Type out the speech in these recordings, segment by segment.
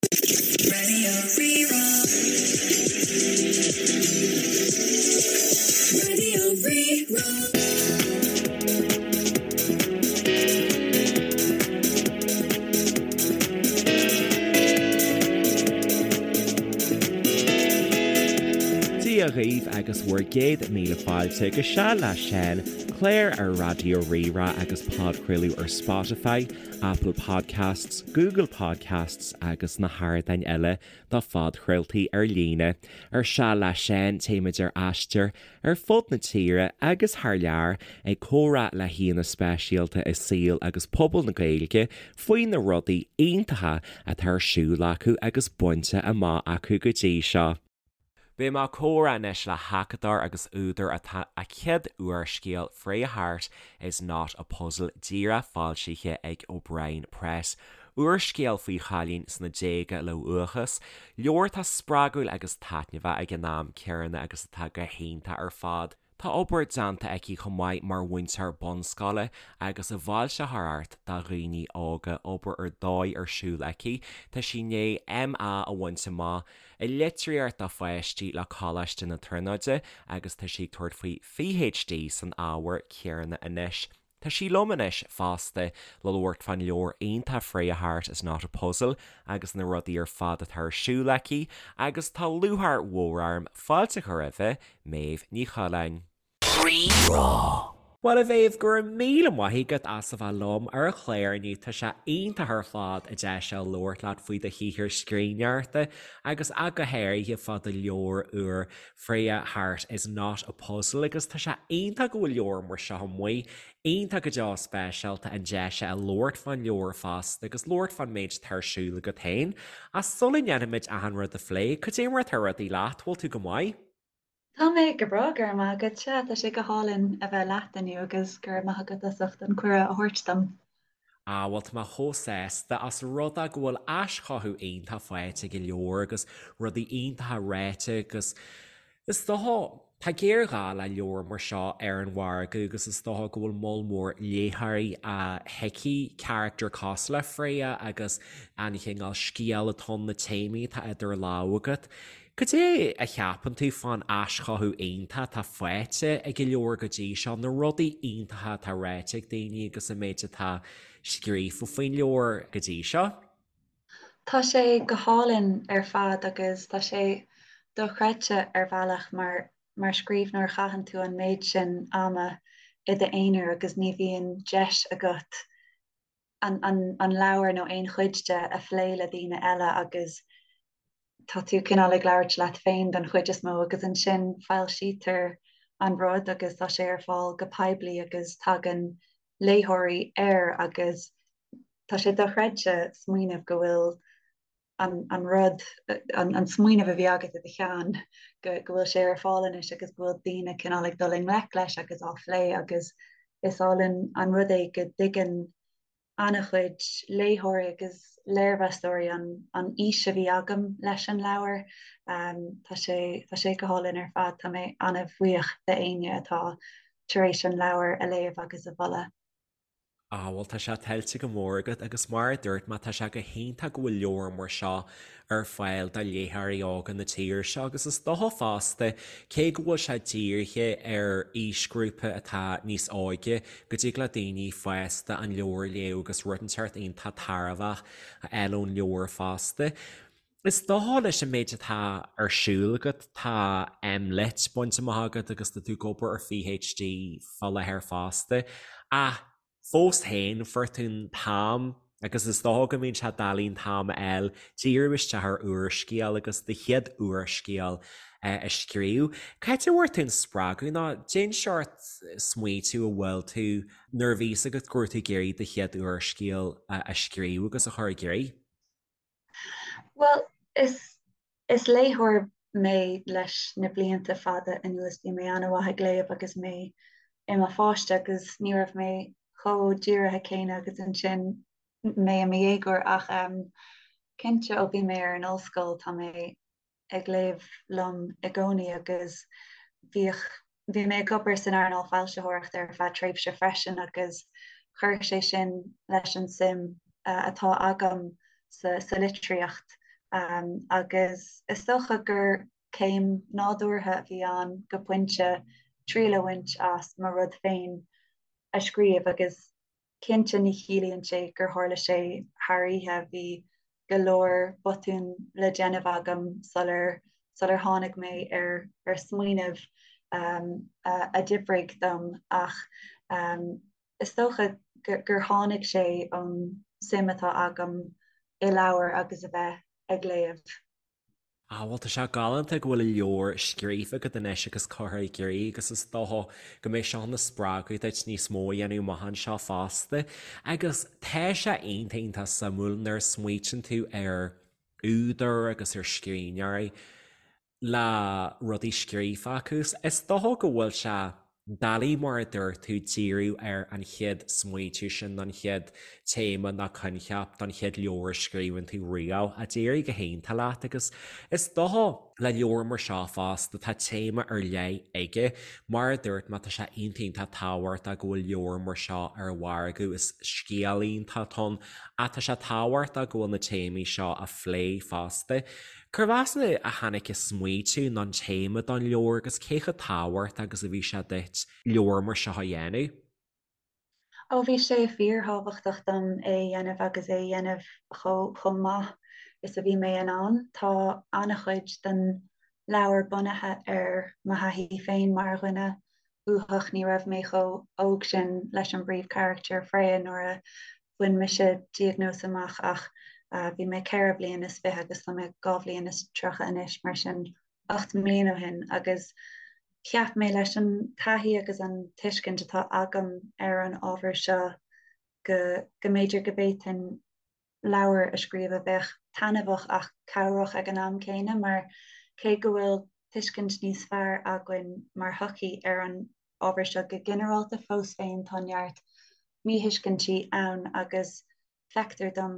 Radio Rí-Rá. Radio Rí-Rá. Dia dhaoibh agus bhur gcéad míle fáilte go Seal le Seán, clár ar Raidió Rí-Rá agus podchraoladh ar Spotify, Apple Podcasts, Google Podcasts agus na hardáin eile do phodchraoltaí ar líne. Ar Seal le Seán téimid ar aistear ar fud na tíre agus thar lear ag comhrá le haíonna speisialta i saol agus pobal na Gaeilge faoi na rudaí iontacha atá ar siúl acu agus bainte amach acu go dtí seo. Beidh mé ag comhrá anois le hacadóir agus údar atá a chéad úrscéal Freya Harte is Not a Puzzle díreach foilsithe ag O'Brien Press. Úrscéal faoi chailín sna déaga le uathachas, leabhar atá spreagúil agus taitneamhach ag an am céanna agus atá go hiontach ar fad. Tá obair déanta aici chomh maith mar mhúinteoir bunscoile agus i bhfoilsitheoireacht do dhaoine óga, obair ar dóigh ar siúl aici. Tá sí i ndiaidh MA a bhaint amach i litríocht do pháistí le Coláiste na Tríonóide agus tá sí ag tabhairt faoi PhD san ábhar céanna anois. Tá sí liom anois fosta le labhairt fán leabhar iontach Freya Harte is Not a Puzzle agus na rudaí ar fad atá ar siúl aici agus tá lúcháir mhór orm fáilte a chur roimhe, Méabh Ní Choileáin. Rí-Rá. Bhuel a Mhéabh, go raibh míle maith agat as a bheith liom ar an chlár inniu, tá sé iontach ar fad an deis seo labhairt leat faoi do shaothar scríbhneoireachta agus ach go háirithe fá do leabhar úr Freya Harte is Not a Puzzle agus tá sé iontach go bhfuil leabhar mar seo amuigh, iontach go deo speisialta an deis a labhairt fán leabhar fosta agus labhairt fán méid atá ar siúl agat féin. Ach sula ndéanfaimid achan rud a phlé, cad é mar atá rudaí leat, bhfuil tú go maith? Tá mé go breá, go raibh maith agat. Sea, tá sé go hálainn a bheith leat inniu agus go raibh maith agat as ucht an cuireadh a thabhairt dom. Ah, bhuel, tá mé chomh sásta ós rud é go bhfuil aischothú iontach faighte ag an leabhar agus rudaí iontacha ráite agus is dócha, tá géarghá le leabhar mar seo ar an mhargadh agus is dócha go bhfuil moll mór léitheoirí a thuigfidh carachtar cosúil le Freya agus an chineál scéal atá ann, na téamaí atá idir lámha agat. Cad é a cheapann tú fán aischothú iontach atá faighte ag an leabhar go dtí seo, na rudaí iontacha atá ráite ag daoine agus an méid atá scríofa faoin leabhar go dtí seo? Tá sé go hálainn ar fad agus tá sé dochreidte ar bhealach mar mar scríbhneoir caitheann tú an méid sin ama i d'aonar agus ní bhíonn deis agat an an leabhar nó aon chuid de a phlé le daoine eile agus tá tú cineál ag labhairt leat féin don chuid is mó agus ansin foilsítear an rud agus tá sé ar fáil go poiblí agus tagann léitheoirí air agus tá sé dochreidte smaoineamh go bhfuil an an rud, an an smaoineamh a bhí agat i do cheann, go go bhfuil sé ar fáil anois agus go bhfuil daoine cineál ag dul i ngleic leis agus á phlé agus is álainn an rud é go dtuigeann an-chuid léitheoirí agus léirmheastóirí an an fhís a bhí agam leis an leabhar. Tá sé tá sé go hálainn ar fad, tá mé an-bhuíoch d'éinne atá tar éis an leabhar a léamh agus a mholadh. Ah, bhuel tá sé tuillte go mór agat agus mar a dúirt mé tá sé go hiontach go bhfuil leabhar mar seo ar fáil do léitheoirí óga na tíre seo agus is dócha fosta cé go bhfuil sé dírithe ar aoisghrúpa atá níos óige go dtig le daoine fásta an leabhar a léamh agus rud inteacht iontach tairbheach a fháil ón leabhar fosta. Is dócha leis an méid atá ar siúl agat tá MLitt bainte amach agat agus tá tú ag obair ar PhD fá láthair fosta ach fós féin fuair tú an t-am agus is dócha go mbíonn sé doiligh an t-am a fháil díriú isteach ar úrscéal agus do chéad úrscéal a scríobh. Cá háit a bhfuair tú an spreagadh nó cén seort smaoitiú a bhfuil tú nuair a bhí fhios agat go raibh tú ag iarraidh do chéad úrscéal a scríobh agus a chur i gcrích? Bhuel, is is léitheoir mé leis na blianta fada anuas. Bhí mé an-mhaith ag léamh agus mé i mo pháiste agus ní raibh mé chomh dírithe céanna agus ansin mé i mo dhéagóir ach cinnte ó bhí mé ar an ollscoil tá mé ag léamh liom i gcónaí agus bhíodh, bhí mé ag obair san earnáil foilsitheoireachta ar feadh tréimhse freisin agus chuir sé sin leis an suim atá agam sa, sa litríocht. Agus is dócha gur céim nádúrtha a bhí ann go pointe triail a bhaint as mo rud féin a scríobh agus cinnte ní chiallaíonn sé gur tharla sé thar oíche, bhí go leor botún le déanamh agam sular sular tháinig mé ar ar smaoineamh a d'oibrigh dom ach is dócha gur tháinig sé ón suim atá agam i leabhair agus a bheith ag léamh. Ah bhuel tá sé galánta go bhfuil leabhar scríofa agat anois agus curtha i gcrích agus is dócha go mbeidh seo ina spreagadh duit níos mó a dhéanamh amach anseo fosta. Agus tá sé iontach iontach suimiúil nuair a smaoitíonn tú ar údair agus ar scríbhneoirí le rudaí scríofa acu. Is dócha go bhfuil sé doiligh mar a dúirt tú díriú ar an chéad smaoitiú sin, an chéad téama nó coincheap don chéad leabhar a scríobhann tú riamh ach d'éirigh go hiontach leat agus is dócha le leabhar mar seo fosta tá téama ar leith aige. Mar a dúirt mé tá sé iontach iontach tábhachtach go bhfuil leabhar mar seo ar an mhargadh, is scéal iontach atá ann ach tá sé tábhachtach go bhfuil na téamaí seo á phlé fosta. Cérbh as a tháinig an smaoitiú nó an téama don leabhar agus cé chomh tábhachtach agus a bhí sé duit leabhar mar seo a dhéanamh? Ó bhí sé fíorthábhachtach dom é a dhéanamh agus é a dhéanamh chomh maith is a bhí mé in ann. Tá an-chuid den leabhar bunaithe ar mo thaithí féin mar dhuine uathach. Ní raibh mé chomh hóg sin leis an bpríomhcharachtar, Freya, nuair a Bhain mise diagnóis amach ach bhí mé 24 bhliain agus tá mé 32 bhliain anois, mar sin 8 mbliana ó shin agus cheap mé leis an taithí agus an tuiscint atá agam ar an ábhar seo go go mb'fhéidir go bhféadfainn leabhar a scríobh a bheadh taitneamhach ach cabhrach ag an am céanna mar cé go bhfuil tuiscint níos fearr againn mar shochaí ar an ábhar seo go ginearálta, fós féin tá neart míthuiscintí ann agus feictear dom,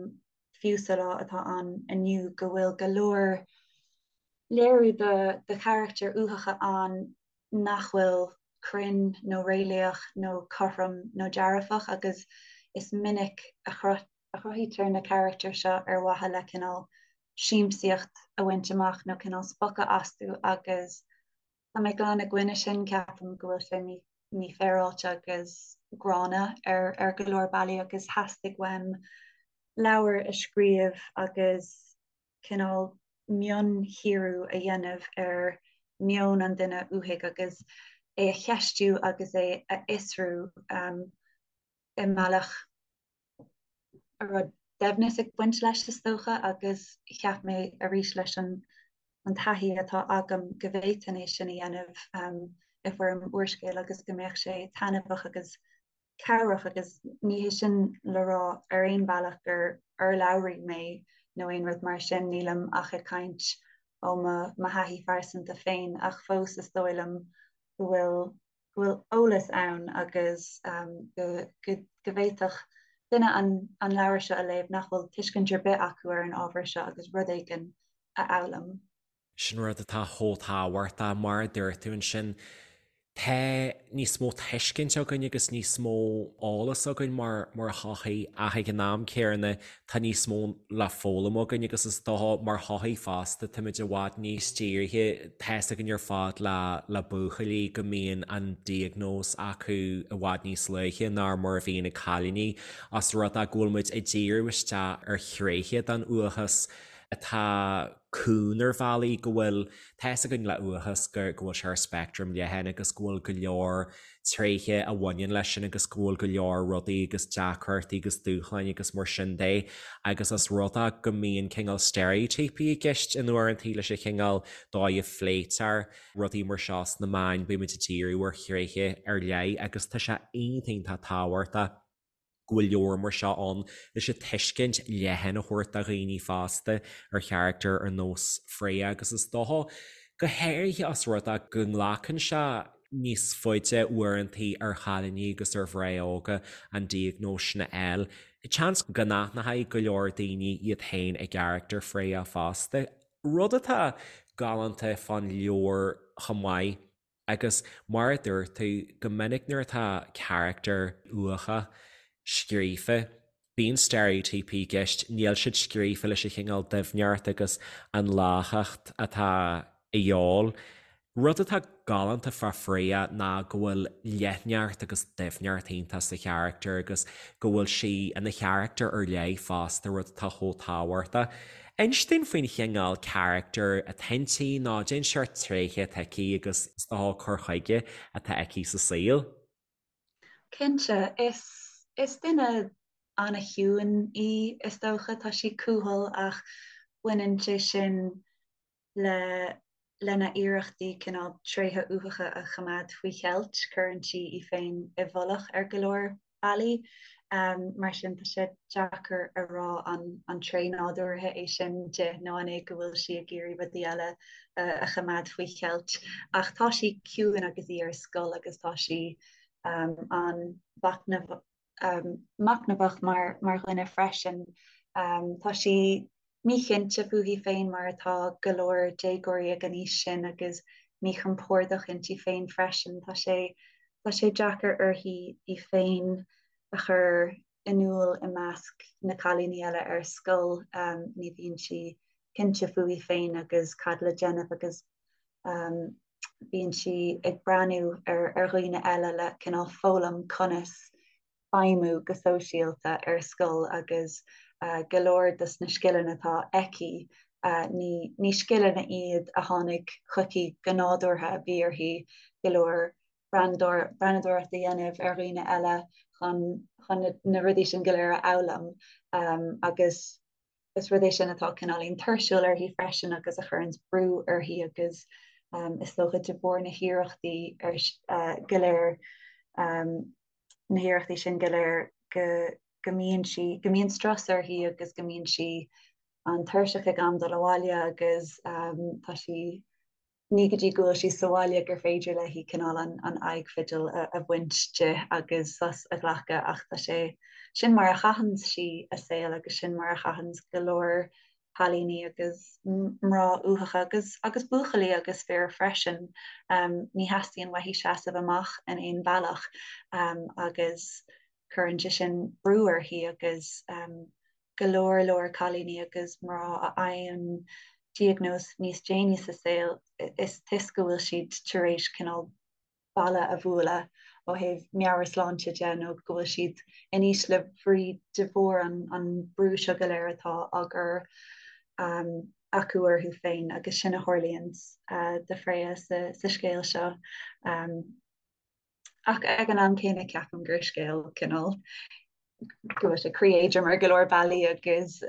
fiú sa lá atá ann inniu, go bhfuil go leor léiriú de charachtair uathacha ann nach bhfuil cruinn nó réalaíoch nó cothrom nó dearfach agus is minic a chruthaítear na carachtair seo ar mhaithe le cineál siamsaíocht a bhaint amach nó cineál spochadh astu agus Tá mé glan i gcoinne sin, ceapaim go bhfuil sé mífhéaráilte agus gránna ar go leor bealaí agus theastaigh uaim leabhar a scríobh agus cineál mionchíoradh a dhéanamh ar meon an duine uathaigh agus é a cheistiú agus é a fhiosrú i mbealach a raibh doimhneas ag baint leis, is dócha, agus cheap mé arís leis an an taithí atá agam go bhféadfainn é sin a dhéanamh i bhfoirm úrscéil agus go mbeadh sé taitneamhach agus cabhrach agus ní hé sin le rá ar aon bhealach gur urlabhraí mé nó aon rud mar sin, nílim ach ag caint ó mo thaithí phearsanta féin ach fós is dóigh liom go bhfuil go bhfuil eolas ann agus go bhféadfadh duine an leabhar seo a léamh nach bhfuil tuiscint ar bith acu ar an ábhar seo agus rud éigin a fhoghlaim. Sin rud atá chomh tábhachtach, mar a dúirt tú ansin, tá níos mó tuiscint againn agus níos mó eolas againn mar mar shochaí ach ag an am céanna tá níos mó le foghlaim againn agus is dócha mar shochaí fosta táimid i bhfad níos dírithe, tá's againn ar fad le le buachaillí go mbíonn an diagnóis acu i bhfad níos luaithe ná mar a bhíonn ag cailíní os rud é go bhfuil muid ag díriú isteach ar thréithe den uathachas atá cúng ar bhealaí go bhfuil tá's againn le uathachas go go bhfuil sé ar speictream leathan agus go bhfuil go leor tréithe a bhaineann leis sin agus go bhfuil go leor rudaí agus deacrachtaí agus dúshláin agus mar sin de agus os rud é go mbíonn cineál steiréitíopaí i gceist in uaireantaí leis an chineál dóigh a phléitear rudaí mar seo sna meáin, bímid ag díriú ar thréithe ar leith agus tá sé iontach iontach tábhachtach go bhfuil leabhar mar seo ann leis an tuiscint leathan a thabhairt do dhaoine fosta ar charachtar ar nós Freya agus is dócha go háirithe os rud é go nglacann sé níos faide uaireantaí ar chailíní agus ar mhná óga an diagnóis sin a fháil. Seans go n-aithneoidh go leor daoine iad féin i gcarachtar Freya fosta, rud atá galánta fán leabhar chomh maith. Agus mar a dúirt tú, go minic nuair atá carachtar uathach scríofa. Bíonn steiréitíopaí i gceist, níl siad scríofa leis an chineál doimhneacht agus an láchacht atá a dhíobháil. Rud atá galánta fá Freya ná go bhfuil leithneacht agus doimhneacht iontach sa charachtar agus go bhfuil sí ina charachtar ar leith fosta, rud atá chomh tábhachtach. Inis dúinn faoin chineál carachtar atá inti nó cén seort tréithe atá aici agus is dócha cur chuige atá aici sa saol. Cinnte, is is duine an-chiúin í is dócha, tá sí cúthail ach baineann sé sin le lena iarrachtaí cineál tréithe uathacha a choimeád faoi cheilt, cuireann sí í féin i bhfolach ar go leor bealaí. Mar sin, tá sé deacair a rá an an tréith nádúrtha é sin di nó an é go bhfuil sí ag iarraidh rudaí eile a choimeád faoi cheilt. Ach tá sí ciúin agus í ar scoil agus tá sí an-mhachnamh machnamhach mar mar dhuine freisin. Tá sí míchinnte fúithi féin mar atá go leor déagóirí ag an aois sin agus míchompordach inti féin freisin. Tá sé tá sé deacair uirthi í féin a chur in iúl i measc na cailíní eile ar scoil. Ní bhíonn sí cinnte fúithi féin agus cad le déanamh agus bíonn sí ag breathnú ar ar dhaoine eile le cineál foghlaim conas feidhmiú go sóisialta ar scoil agus go leor dos na scileanna atá aici ní ní scileanna iad a tháinig chuici go nádúrtha, bhí uirthi go leor breathnadóireacht a dhéanamh ar dhaoine eile chun chun na rudaí sin go léir a fhoghlaim agus is rud é sin atá cineáilín tuirsiúil uirthi freisin agus a chuireanns brú uirthi agus is dócha de bharr na hiarrachtaí go léir, na hiarrachtaí sin go léir go go mbíonn sí, go mbíonn strus uirthi agus go mbíonn sí an-tuirseach ag am dul abhaile agus tá sí ní go dtí go bhfuil sí sa bhaile gur féidir léi cineál an aghaidh fidil a bhaint di agus sos a ghlacadh ach tá sé sin mar a chaitheann sí a saol agus sin mar a chaitheann go leor cailíní agus mná uathacha agus agus buachaillí agus fir freisin. Ní theastaíonn uaithi seasamh amach in aon bhealach agus cuireann sé sin brú uirthi agus go leor leor cailíní agus mná a fhaigheann diagnóis níos déanaí sa saol, is toisc go bhfuil siad tar éis cineál balla a bhualadh ó thaobh meabhairshláinte de nó go bhfuil siad in ísle brí de bharr an an brú seo go léir atá á gcur acu orthu féin agus sin a tharlaíonn do Freya sa sa scéal seo. Ach ag an am céanna ceapaim gur scéal cineál go bhfuil sé croí-éadrom ar go leor bealaí agus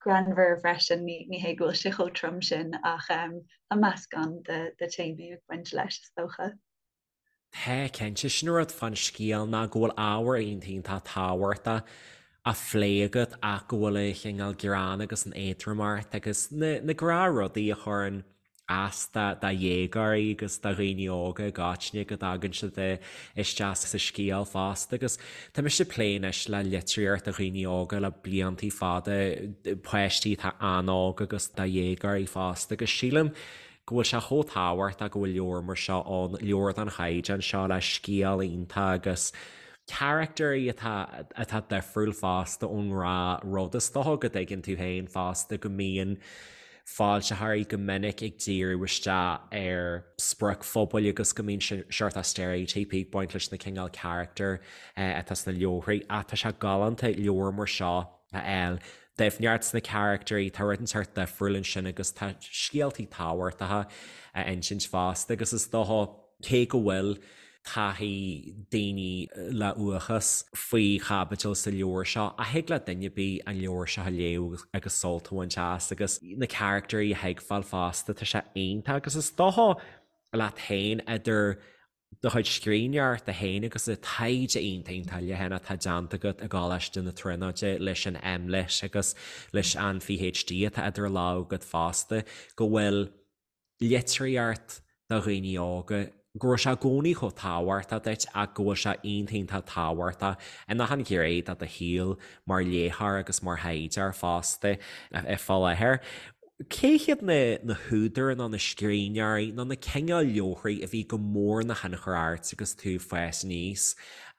greannmhar freisin, ní hé go bhfuil sé chomh trom sin ach tá meascán de de téamaí ag baint leis is dócha. Tá, cinnte. Sin an rud fán scéal ná go bhfuil ábhar iontach iontach tábhachtach á phlé agat ach go bhfuil an chineál greann agus an éadromacht agus na na gnáthrudaí a chuireann as do dhéagóirí agus do dhaoine óga i gcoitinne go dtagann siad isteach sa scéal fosta agus tá mise ag plé anois le litríocht do dhaoine óga le bliantaí fada, páistí atá an-óg agus do dhéagóirí fosta agus sílim go bhfuil sé chomh tábhachtach go bhfuil leabhar mar seo ann, leabhar den chaighdeán seo le scéal iontach agus caractairí atá atá difriúil fosta ón ngnáthrud. Is dócha go dtuigeann tú féin fosta go mbíonn foilsitheoirí go minic ag díriú isteach ar spriocphobail agus go mbíonn seort steiréitíopaí ag baint leis na cineál carachtar atá sna leabharthaí ach tá sé galánta leabhar mar seo a fháil. Doimhneacht sna carachtairí, tá rud inteacht difriúil ansin agus tá scéaltaí tábhachtacha á insint fosta agus is dócha cé go bhfuil taithí daoine le uathachas faoi chaibidil sa leabhar seo ach thig le duine ar bith an leabhar seo a léamh agus sult a bhaint as agus na caractairí a thuigbheáil fosta, tá sé iontach agus is dócha leat féin idir do chuid scríbhneoireachta féin agus an taighde iontach iontach leathan atá déanta agat i gColáiste na Tríonóide leis an MLitt agus leis an PhD atá idir lámha agat fosta go bhfuil litríocht do dhaoine óga, go raibh sé i gcónaí chomh tábhachtach duit ach go bhfuil sé iontach iontach tábhachtach in achan ghné de do shaol mar léitheoir agus mar thaighdeoir fosta fá láthair. Cé hiad na na húdair nó na scríbhneoirí nó na cineál leabharthaí a bhí go mór ina thionchar ort agus tú ag fás aníos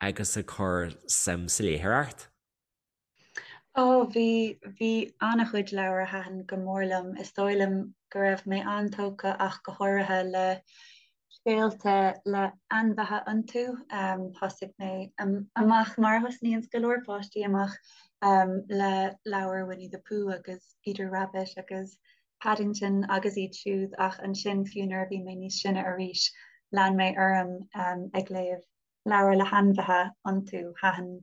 agus ag cur suim sa léitheoireacht? Ó, bhí, bhí an-chuid leabhar a thaitin go mór liom. Is dóigh liom go raibh mé an-tógtha ach go háirithe le scéalta le ainmhithe iontu. Thosaigh mé amach mar a thosnaíonns go leor páistí amach le leabhair Winnie the Pooh agus Peter Rabbit agus Paddington agus iad siúd ach ansin fiú nuair a bhí mé níos sine arís lean mé orm ag léamh leabhair le hainmhithe iontu. Thaitin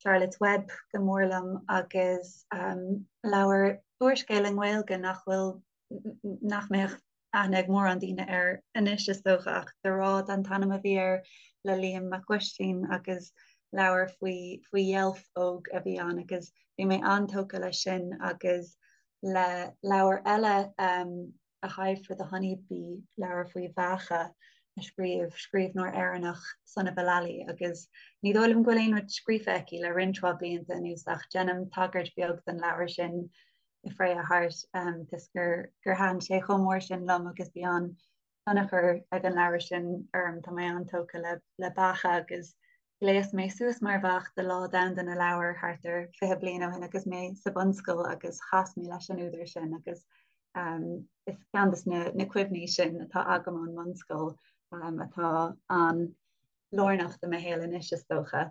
Charlotte's Web go mór liom agus leabhar úrscéal i nGaeilge nach bhfuil, nach mbeadh aithne ag mórán daoine air anois is dócha ach Dúrud an t-ainm a bhí air le Liam Mac Uistín agus leabhar faoi faoi dheilf óg a bhí ann agus bhí mé an-tógtha leis sin agus le leabhar eile A Hive for the Honey Bee, leabhar faoi bheacha a scríobh scríbhneoir Éireannach, Sunniva Lally, agus ní dóigh liom go bhfuil aon rud scríofa aici le roinnt mhaith blianta anuas ach déanaim tagairt bheag don leabhar sin i Freya Heart toisc gur gur thaitin sé chomh mór sin liom agus bhí an-tionchar ag an leabhar sin orm. Tá mé an-tógtha le le beacha agus Ghléas mé suas mar bheach do Lá Domhanda na Leabhar thart ar 20 bliain ó shin agus mé sa bhunscoil agus chas mé leis an údar sin agus is ceann de na cuimhní sin atá agam ón mbunscoil atá an-lárnach do mo shaol anois is dócha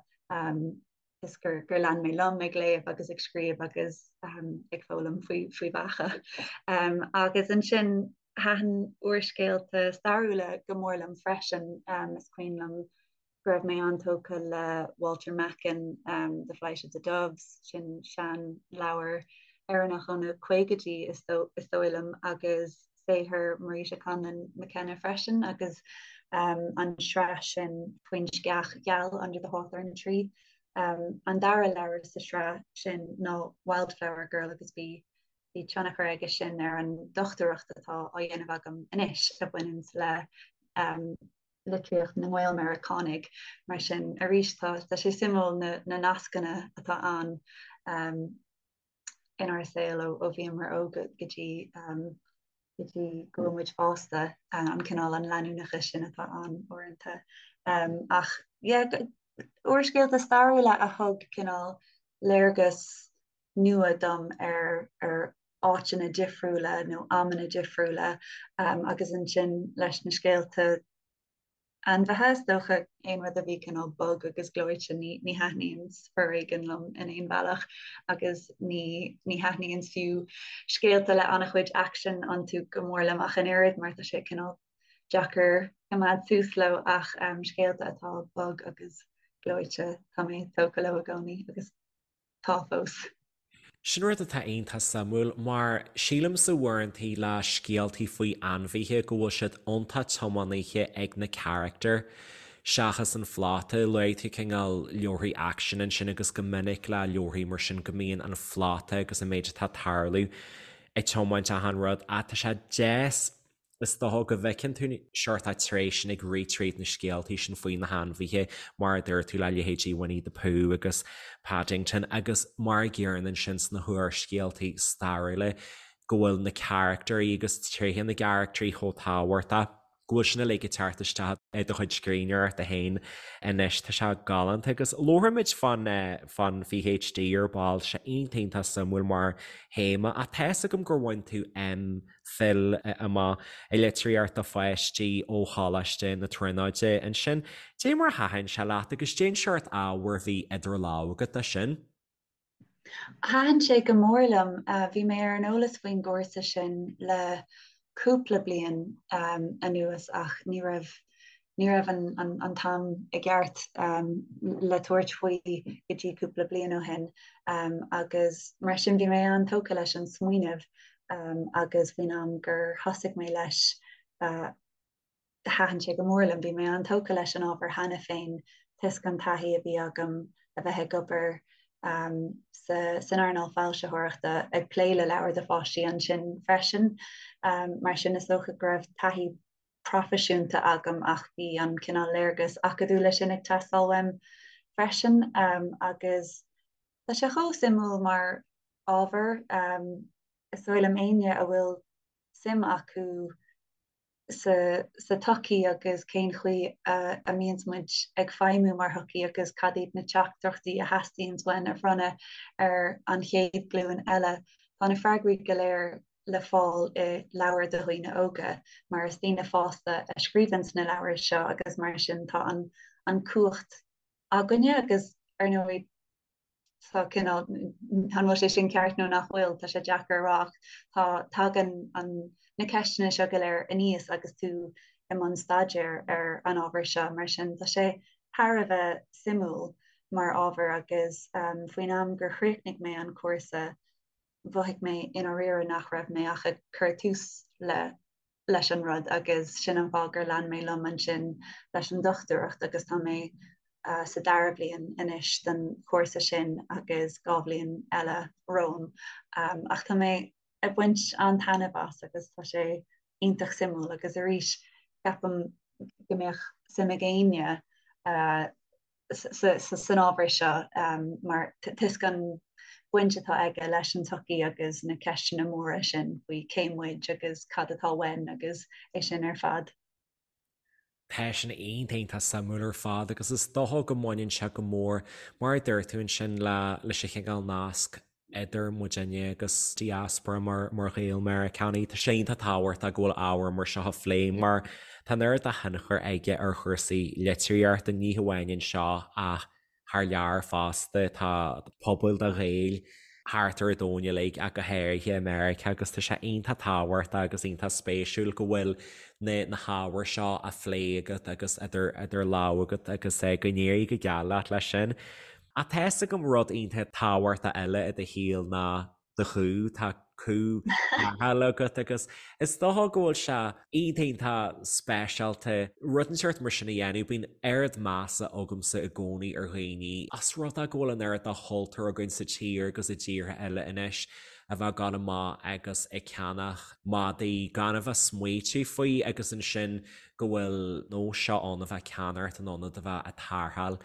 is gur gur lean mé liom ag léamh agus ag scríobh agus ag foghlaim faoi faoi bheacha. Agus ansin thaitin úrscéalta stairiúla go mór liom freisin, is cuimhin liom go raibh mé an-tógtha le Walter Macken, The Flight of the Doves, sin sean-leabhar Éireannach ó na caogaidí is dóigh liom, agus saothar Marita Conlon McKenna freisin, agus an sraith sin faoin sceach gheal, Under the Hawthorn Tree. An dara leabhar sa sraith sin ná Wildflower Girl agus bhí bhí tionchar aige sin ar an dochtúireacht atá á dhéanamh agam anois a bhaineanns le litríocht na nGael-Mheiriceánaigh. Mar sin, arís, tá sé suimiúil na nascanna atá ann inár saol ó bhíomar óg go dtí go dtí go bhfuil muid fásta, an cineál an leanúnachas sin atá ann uaireanta. Ach yeah, úrscéalta stairiúla a thug cineál léargas nua dom ar ar áiteanna difriúla nó amanna difriúla agus ansin leis na scéalta ainmhithe, is dócha aon rud a bhí cineál bog agus gleoite ní ní thaitníonns foréigean liom in aon bhealach agus ní ní thaitníonns fiú scéalta le an-chuid aicsin iontu go mór liom ach an oiread mar tá sé cineál deacair coimeád suas leo ach scéalta atá bog agus gleoite tá mé tógtha leo i gcónaí agus tá fós. Sin rud atá iontach suimiúil, mar sílimse uaireantaí le scéaltaí faoi ainmhithe go bhfuil siad iontach tiománaithe ag na carachtair seachas an phlota. Luaigh tú cineál leabharthaí aicsin ansin agus go minic le leabharthaí mar sin go mbíonn an phlota agus an méid atá ag tarlú ag tiomáint achan rud ach tá sé deas Is dócha go bhfeiceann tú seort tréith sin ag rith tríd na scéaltaí sin faoi na hainmhithe, mar a dúirt tú le leithéidí Winnie the Pooh agus Paddington, agus mar a gcéanna ansin sna húrscéaltaí stairiúla, go bhfuil na carachtairí agus tréithe na gcarachtraí chomh tábhachtach, go bhfuil sin uilig ag teacht isteach i do chuid scríbhneoireachta féin anois. Tá sé galánta agus labharfaimid fán fán PhD ar ball, sé iontach iontach suimiúil mar théama ach tá fhios agam gur bhain tú M. Phil amach i litríocht do pháistí ó Choláiste na Tríonóide ansin. Dé mar a thaitin sé leat agus dén seort ábhair a bhí idir lámha agat dó sin? Thaitin sé go mór liom. Bhí mé ar an eolas faoin gcúrsa sin le cúpla bliain anuas ach ní raibh ní raibh an t-am i gceart le tabhairt faoi go dtí cúpla bliain ó shin agus mar sin bhí mé an-tógtha leis an smaoineamh agus faoin am gur thosaigh mé leis thaitin sé go mór liom. Bhí mé an-tógtha leis an ábhar cheana féin toisc an taithí a bhí agam a bheith ag obair san earnáil foilsitheoireachta ag plé le leabhair do pháistí ansin freisin. Mar sin is dócha go raibh taithí proifisiúnta agam ach bhí an cineál léargas acadúla sin ag teastáil uaim freisin agus tá sé chomh suimiúil mar ábhar. Is dóigh liom éinne a bhfuil suim acu sa tsochaí agus cén chaoi a mbíonns muid ag feidhmiú mar shochaí agus cad iad na teachtaireachtaí a theastaíonns uainn a bhronnadh ar an chéad ghlúin eile. Tá na freagraí go léir le fáil i leabhair do dhaoine óga mar is daoine fásta a scríobhanns na leabhair seo agus mar sin tá an cumhacht againne agus ar ndóigh tá cineál, an bhfuil sé sin ceart nó nach bhfuil, tá sé deacair a rá ach tá, tagann an, na ceisteanna seo go léir aníos agus tú i mbun staidéir ar an ábhar seo, mar sin tá sé thar a bheith suimiúil mar ábhar agus faoin am gur chríochnaigh mé an cúrsa mhothaigh mé i ndáiríre nach raibh mé ach ag cur tús le leis an rud agus sin an fáth gur lean mé liom ansin leis an dochtúireacht agus tá mé sa dara bliain anois den chúrsa sin agus 2 bhliain eile romham. Ach tá mé ag baint an-taitneamh as agus tá sé iontach suimiúil agus arís ceapaim go mbeadh suim ag éinne san ábhar seo mar toisc an bhaint atá aige leis an tsochaí agus na ceisteanna móra sin faoi cé muid agus cad atá uainn agus é sin ar fad. Tá sin iontach iontach suimiúil ar fad agus is dócha go mbaineann sé go mór, mar a dúirt tú ansin, leis an chineál nasc idir muidinne agus diaspora mar Ghaeil Meiriceánaigh. Tá sé iontach tábhachtach go bhfuil ábhar mar seo á phlé mar tá an oiread de thionchar aige ar chúrsaí litríochta, ní hamháin anseo ach thar lear fosta. Tá pobail de Ghaeil thart ar an domhan uilig ach go háirithe i Meiriceá agus tá sé iontach tábhachtach agus iontach spéisiúil go bhfuil na hábhair seo á phlé agat agus idir lámha agat agus go n-éirí go geal leat leis sin. Ach tá fhios agam rud iontach tábhachtach eile i do shaol ná do chú, tá cú tarrthála agat agus is dócha go bhfuil sé iontach iontach speisialta rud inteacht mar sin a dhéanamh. Bíonn oiread measa agamsa i gcónaí ar dhaoine as rud é go bhfuil an oiread de chultúr againn sa tír agus i dtíortha eile anois a bheith ag gabháil amach agus ag ceannach madaí gan a bheith smaoitiú faoi agus ansin go bhfuil nós seo ann a bheith ag ceannacht in ionad a bheith ag tarrtháil.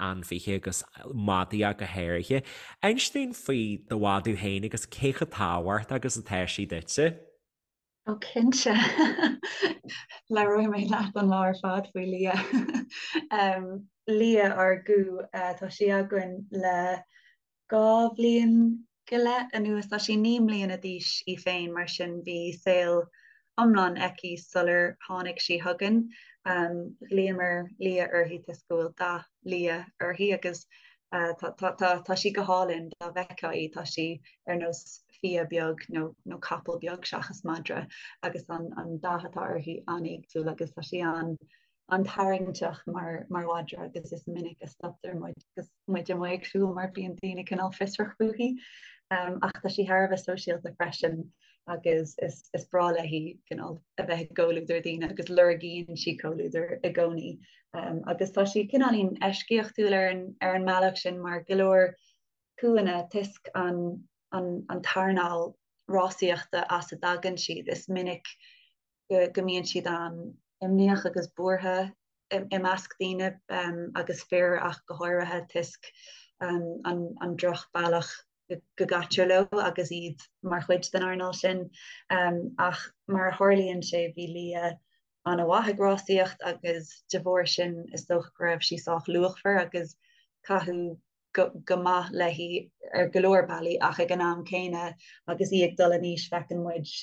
ainmhithe agus madaí ach go háirithe. Inis dúinn faoi do mhadadh féin agus cé chomh tábhachtach agus atá sí duitse. Ó cinnte. Labhróidh mé leat an lá ar fad faoi Lia. Lia ár gcú, tá sí againn le 2 bhliain go leith anuas. Tá sí 9 mbliana d'aois í féin, mar sin bhí saol iomlán aici sular tháinig sí chugainn. Ghlaomar Lia uirthi toisc go bhfuil dath liath uirthi agus tá sí go hálainn dá bhfeicfeá í, tá sí ar nós fia beag nó nó capall beag seachas madra agus an an dath atá uirthi an-éagsúil agus tá sí an an-tarraingteach mar mar mhadra agus is minic a stoptar muid agus muid amuigh ag siúl mar bíonn daoine cineál fiosrach fúithi. Ach tá sí thar a bheith sóisialta freisin agus is is breá léi cineál a bheith i gcomhluadar daoine agus lorgaíonn sí comhluadar i gcónaí. Agus tá sí cineáilín eisceachtúil ar an ar an mbealach sin mar go leor cúanna toisc an an an t-earnáil rásaíochta as a dtagann siad is minic go mbíonn siad an-imníoch agus buartha i measc daoine agus fir ach go háirithe toisc an drochbhealach go gcaitear leo agus iad mar chuid den earnáil sin. Ach mar a tharlaíonn sé bhí Lia an-mhaith ag rásaíocht agus de bharr sin is dócha go raibh sí sách luachmhar agus caitheadh go maith léi ar go leor bealaí ach ag an am céanna agus í ag dul in aois feiceann muid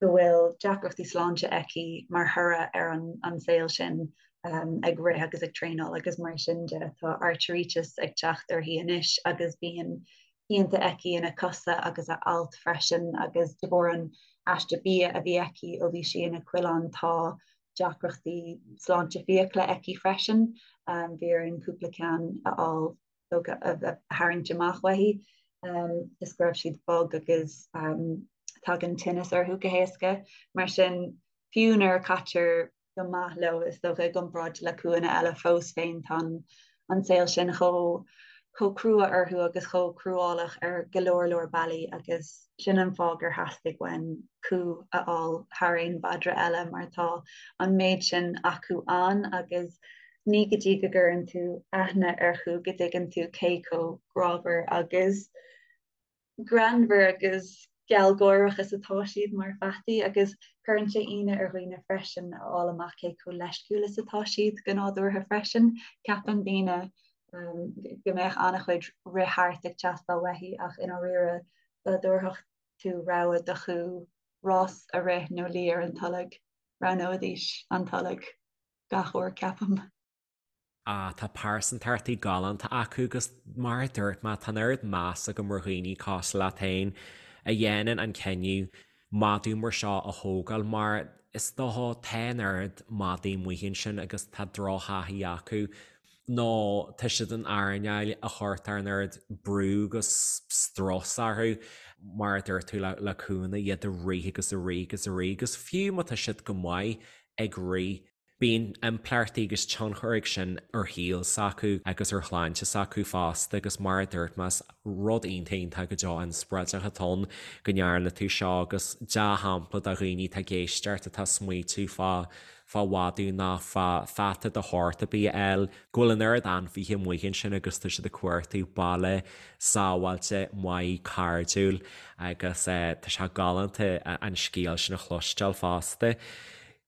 go bhfuil deacrachtaí sláinte aici mar thoradh ar an saol sin ag rith agus ag traenáil agus mar sin de. Tá airtríteas ag teacht uirthi anois agus bíonn pianta aici ina cosa agus a ailt freisin agus de bharr an aiste bia a bhí aici ó bhí sí ina coileán tá deacrachtaí sláinte fiacla aici freisin. Bhí orainn cúpla ceann a fháil a tharraingt amach uaithi is go raibh siad bog agus tagann tinneas orthu go héasca. Mar sin, fiú nuair a caitear go maith leo, is dócha, i gcomparáid le cúanna eile fós féin, tá an saol sin chomh chomh crua orthu agus chomh cruálach ar go leor leor bealaí agus sin an fáth gur theastaigh uainn cú a fháil thar aon mhadra eile mar tá an méid sin acu ann agus ní go dtí go gcuireann tú aithne ar chú go dtuigeann tú cé chomh grámhar agus greannmhar agus. gealgháireach is atá siad mar pheataí agus cuireann sé ionadh ar dhaoine freisin a fháil amach cé chomh leisciúil is atá siad go nádúrtha freisin. Ceapann daoine go mbeadh an-chuid rith thart ag teastáil uaithi ach i ndáiríre dá dtabharfadh tú rogha do chú rás a rith nó luí ar an tolg, roghnóidís an tolg gach uair ceapaim. Ah, tá pearsantachtaí galánta acu agus mar a dúirt mé, tá an oiread meas agam ar dhaoine cosúil leat féin a dhéanann an cinneadh madadh mar seo a thógáil mar is dócha tá an oiread madaí amuigh ansin agus tá drochthaithí acu nó tá siad in earnáil a chuirtear an oiread brú agus strus orthu mar a dúirt tú le cúnna iad ag rith agus ag rith agus ag rith agus fiú má tá siad go maith ag rith Bíonn impleachtaí agus tionchar ag sin ar shaol s'acu agus ar shláinte s'acu fosta agus mar a dúirt mé is rud iontach iontach go deo inspioráideach atá ann go ndearna tú seo agus dea-shampla do dhaoine atá ag éisteacht atá ag smaoitiú fá fá mhadadh nó fá pheata de shórt ar bith a fháil, go bhfuil an oiread ainmhithe amuigh ansin agus tá siad ag cuartú baile sábháilte, maith, cairdiúil agus tá sé galánta an scéal sin a chloisteáil fosta.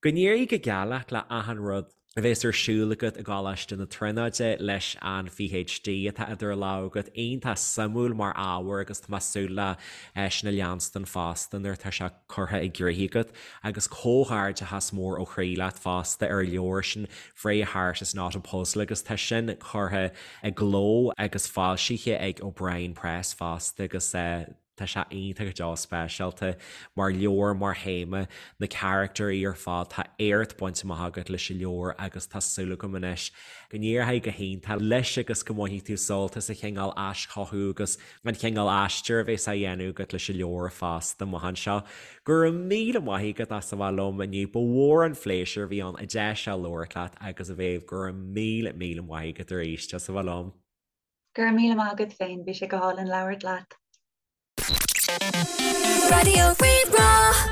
Go n-éirí go geal leat le achan rud a bheas ar siúl agat i gColáiste na Tríonóide leis an PhD atá idir lámha agat. Iontach suimiúil mar ábhar agus tá mé ag súil le sin a leanstan fosta nuair atá sé curtha i gcrích agat. Agus comhghairdeachas mór ó chroí leat fosta ar an leabhar sin Freya Heart is not a Puzzle agus tá sin curtha i gcló agus foilsithe ag O'Brien Press fosta agus Tá sé iontach go deo speisialta mar leabhar, mar théama, na caractéirí ar fad, tá éacht bainte amach agat leis an leabhar agus tá súil agam anois go n-éireoidh go hiontach leis agus go mbainfidh tú sult as an chineál aischothú agus an chineál aistir a bheas á dhéanamh agat leis an leabhar fosta amach anseo. Go raibh míle maith agat as a bheith liom inniu, ba mhór an phléisiúr a bhí ann an deis seo labhairt leat agus a Mhéabh, go raibh míle míle maith agat arís as a bheith liom. Go raibh míle maith agat féin, bhí sé go hálainn labhairt leat. Raidió Rí-Rá.